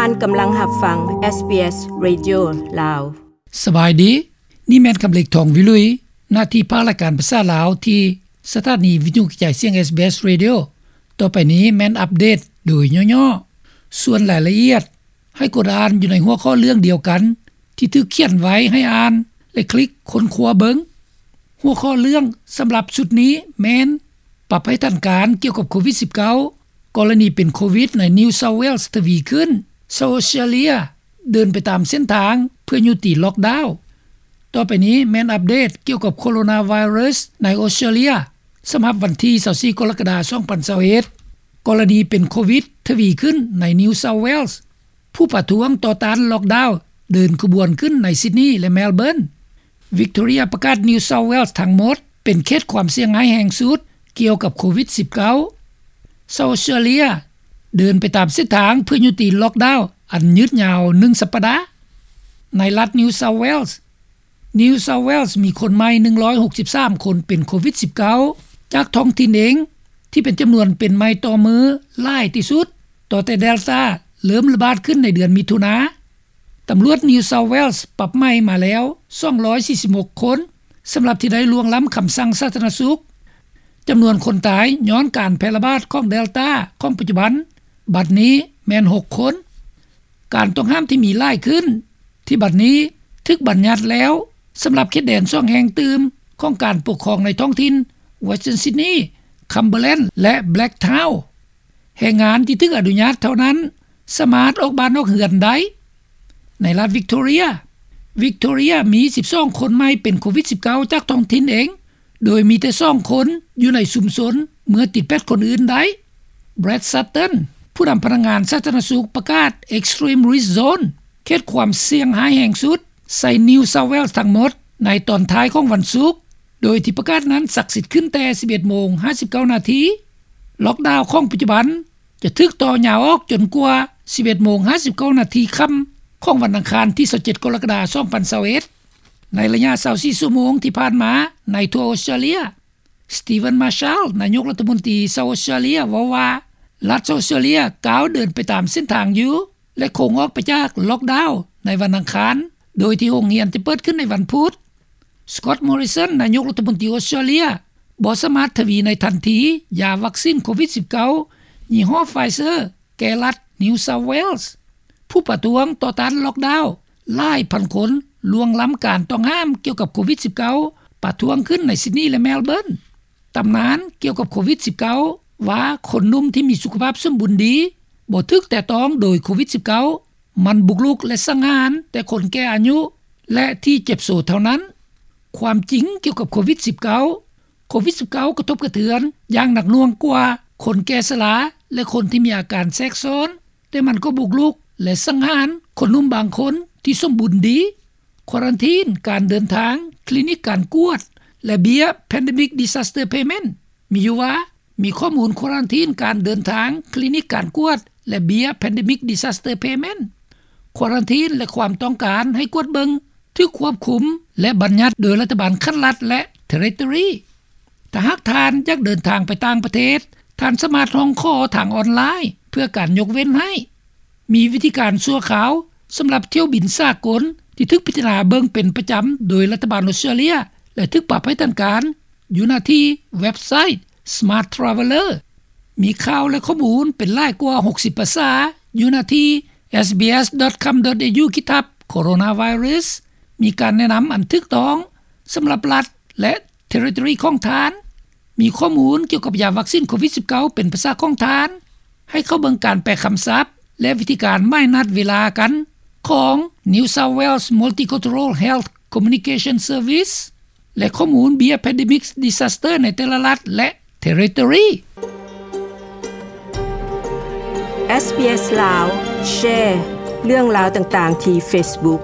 ທ່ານກຳລັງຮັບຟັງ ເອສບີເອສ Radio ລາວ. ສະບາຍດີ, ນີ້ແມ່ນຄຳເລັກ ທອງວິລຸຍ, ໜ້າທີ່ພາກລາຍການພາສາລາວທີ່ສະຖານີວິທະຍຸກະຈາຍສຽງ ເອສບີເອສ Radio. ຕໍ່ໄປນີ້ແມ່ນອັບເດດໂດຍຫຍໍ້ໆ. ສ່ວນລາຍລະອຽດ ໃຫ້ກົດອ່ານຢູ່ໃນຫົວຂໍ້ເລື່ອງດຽວກັນທີ່ຖືກຂຽນໄວ້ໃຫ້ອ່ານ ແລະ ຄລິກຄົ້ນຄວ້າເບິ່ງ. ຫົວຂໍ້ເລື່ອງສຳລັບຊຸດນີ້ແມ່ນ ປັບໃຫ້ທັນການກ່ຽວກັບໂຄວິດສິບເກົ້າ, ກໍລະນີເປັນໂຄວິດໃນ New South Wales ທະວີຂຶ້ນ, South Australia ເດີນໄປຕາມເສັ້ນທາງເພື່ອຍຸຕິລັອກດາວ. ຕໍ່ໄປນີ້ແມ່ນອັບເດດກ່ຽວກັບໂຄໂຣນາໄວຣັສໃນອອສເຕຣເລຍ ສຳລັບວັນທີຊາວສີ່ ກໍລະກະດາ ສອງພັນຊາວເອັດ, ກໍລະນີເປັນໂຄວິດທະວີຂຶ້ນໃນ New South Wales. ຜູ້ປະທ້ວງຕໍ່ຕ້ານລັອກດາວເດີນຂະບວນຂຶ້ນໃນຊິດນີ ແລະ ແມລເບີນ. Victoria ປະກາດ New South Wales ທັງໝົດເປັນເຂດຄວາມສ່ຽງຮ້າຍແຮງສຸດກ່ຽວກັບໂຄວິດສິບເກົ້າ. South Australia ເດີນໄປຕາມເສັ້ນທາງເພື່ອຍຸຕິລັອກດາວອັນຍືດຍາວໜຶ່ງສັບປະດາ. ໃນລັດ New South Wales, New South Wales ມີຄົນໃໝ່ໜຶ່ງຮ້ອຍຫົກສິບສາມຄົນເປັນໂຄວິດສິບເກົ້າ ຈາກທ້ອງຖິ່ນເອງ ທີ່ເປັນຈຳນວນເປັນໃໝ່ຕໍ່ມື້ຫຼາຍທີ່ສຸດ ຕໍ່ແຕ່ Delta ເລີ່ມລະບາດຂຶ້ນໃນເດືອນມິຖຸນາ. ຕຳຫຼວດ New South Wales ປັບໃໝ່ມາແລ້ວສອງຮ້ອຍສີ່ສິບຫົກຄົນ ສຳລັບທີ່ໄດ້ລ່ວງລ້ຳຄຳສັ່ງສາທາລະນະສຸກ. ຈຳນວນຄົນຕາຍຍ້ອນການແຜ່ລະບາດຂອງ Delta ຂອງປັດຈຸບັນ ບັດນີ້ແມ່ນຫົກຄົນ. ການຕ້ອງຫ້າມທີ່ມີຫຼາຍຂຶ້ນ ທີ່ບັດນີ້ຖືກບັນຍັດແລ້ວ ສຳລັບເຂດແດນສອງແຫ່ງຕື່ມຂອງການປົກຄອງໃນທ້ອງຖິ່ນ Western Sydney, Cumberland ແລະ Blacktown. ແຮງງານທີ່ຖືກອະນຸຍາດເທົ່ານັ້ນ ສາມາດອອກບ້ານອອກເຮືອນໄດ້. ໃນລັດ Victoria, Victoria ມີສິບສອງຄົນໃໝ່ເປັນໂຄວິດສິບເກົ້າ ຈາກທ້ອງຖິ່ນເອງ, ໂດຍມີແຕ່ສອງຄົນຢູ່ໃນຊຸມຊົນເມື່ອຕິດແປດຄົນອື່ນໄດ້. Brad Sutton ຜູ້ນຳພະນັກງານສາທາລະນະສຸກ ປະກາດ Extreme Risk Zone ເຂດຄວາມສ່ຽງຮ້າຍແຮງສຸດ ໃສ່ New South Wales ທັງໝົດ ໃນຕອນທ້າຍຂອງວັນສຸກ, ໂດຍທີ່ປະກາດນັ້ນສັກສິດຂຶ້ນແຕ່ສິບເອັດໂມງຫ້າສິບເກົ້ານາທີ. ລັອກດາວຂອງປັດຈຸບັນຈະຖືກຕໍ່ຍາວອອກຈົນກວ່າສິບເອັດໂມງຫ້າສິບເກົ້ານາທີຄ່ຳຂອງວັນອັງຄານທີຊາວເຈັດ ກໍລະກະດາ ສອງພັນຊາວເອັດ. ໃນໄລຍະຊາວສີ່ຊົ່ວໂມງທີ່ຜ່ານມາໃນທົ່ວອອສເຕຣເລຍ, Steven Marshall ນາຍົກລັດຖະມົນຕີຊາວອອສເຕຣເລຍເວົ້າວ່າ ລັດຊາວອອສເຕຣເລຍກ້າວເດີນໄປຕາມເສັ້ນທາງຢູ່ ແລະ ຄົງອອກໄປຈາກລັອກດາວໃນວັນອັງຄານ ໂດຍທີ່ໂຮງຮຽນຈະເປີດຂຶ້ນໃນວັນພຸດ. Scott Morrison ນາຍົກລັດຖະມົນຕີອອສເຕຣເລຍ ບໍ່ສາມາດທະວີໃນທັນທີຢາວັກຊີນໂຄວິດສິບເກົ້າ ຍີ່ຫໍ້ Pfizer ແກ່ລັດ New South Wales. ຜູ້ປະທ້ວງຕໍ່ຕ້ານລັອກດາວຫຼາຍພັນຄົນລ່ວງລ້ຳການຕ້ອງຫ້າມກ່ຽວກັບໂຄວິດສິບເກົ້າ ປະທ້ວງຂຶ້ນໃນ Sydney ແລະ Melbourne. ຕຳນານກ່ຽວກັບໂຄວິດສິບເກົ້າ ວ່າຄົນໜຸ່ມທີ່ມີສຸຂະພາບສົມບູນດີ ບໍ່ຖືກແຕະຕ້ອງໂດຍໂຄວິດສິບເກົ້າ ມັນບຸກລຸກ ແລະ ສັງຫານແຕ່ຄົນແກ່ອາຍຸ ແລະ ທີ່ເຈັບໂຊເທົ່ານັ້ນ. ຄວາມຈິງກ່ຽວກັບໂຄວິດສິບເກົ້າ ໂຄວິດສິບເກົ້າ ກະທົບກະເທືອນຢ່າງໜັກໜ່ວງກວ່າຄົນແກ່ຊະລາ ແລະ ຄົນທີ່ມີອາການແຊກຊ້ອນ, ແຕ່ມັນກໍບຸກລຸກ ແລະ ສັງຫານຄົນໜຸ່ມບາງຄົນທີ່ສົມບູນດີ. ຄວາຣັນທີນການເດີນທາງ, ຄລີນິກການກວດ ແລະ ເບ້ຍ Pandemic Disaster Payment. ມີຢູ່ວ່າ ມີຂໍ້ມູນຄວາຣັນທີນການເດີນທາງ, ຄລີນິກການກວດ ແລະ ເບ້ຍ Pandemic Disaster Payment. ຄວາຣັນທີນ ແລະ ຄວາມຕ້ອງການໃຫ້ກວດເບິ່ງ ຖືກຄວບຄຸມ ແລະ ບັນຍັດໂດຍລັດຖະບານຂັ້ນລັດ ແລະ Territory. ຖ້າຫາກທ່ານຢາກເດີນທາງໄປຕ່າງປະເທດ, ທ່ານສາມາດຮ້ອງຂໍທາງອອນລາຍເພື່ອການຍົກເວັ້ນໃຫ້. ມີວິທີການຊົ່ວຄາວສຳລັບຖ້ຽວບິນສາກົນທີ່ຖືກພິຈາລະນາເບິ່ງເປັນປະຈຳໂດຍລັດຖະບານອອສເຕຣເລຍ ແລະ ຖືກປັບໃຫ້ທັນການ ຢູ່ໜ້າທີ່ເວັບໄຊ Smart Traveller. ມີຂ່າວ ແລະ ຂໍ້ມູນເປັນຫຼາຍກວ່າຫົກສິບພາສາ ຢູ່ໜ້າທີ່ SBS.com.au ຂີດທັບ Coronavirus. ມີການແນະນຳອັນຖືກຕ້ອງສຳລັບລັດ ແລະ Territory ຂອງທ່ານ. ມີຂໍ້ມູນກ່ຽວກັບຢາວັກຊີນໂຄວິດສິບເກົ້າ ເປັນພາສາຂອງທ່ານ. ໃຫ້ເຂົ້າເບິ່ງການແປຄຳສັບ ແລະ ວິທີການໝາຍນັດເວລາກັນຂອງ New South Wales Multicultural Health Communication Service ແລະ ຂໍ້ມູນເບ້ຍ Pandemic Disaster ໃນແຕ່ລະລັດ ແລະ Territory. SBS ລາວ ແຊເລື່ອງລາວຕ່າງໆທີ່ Facebook.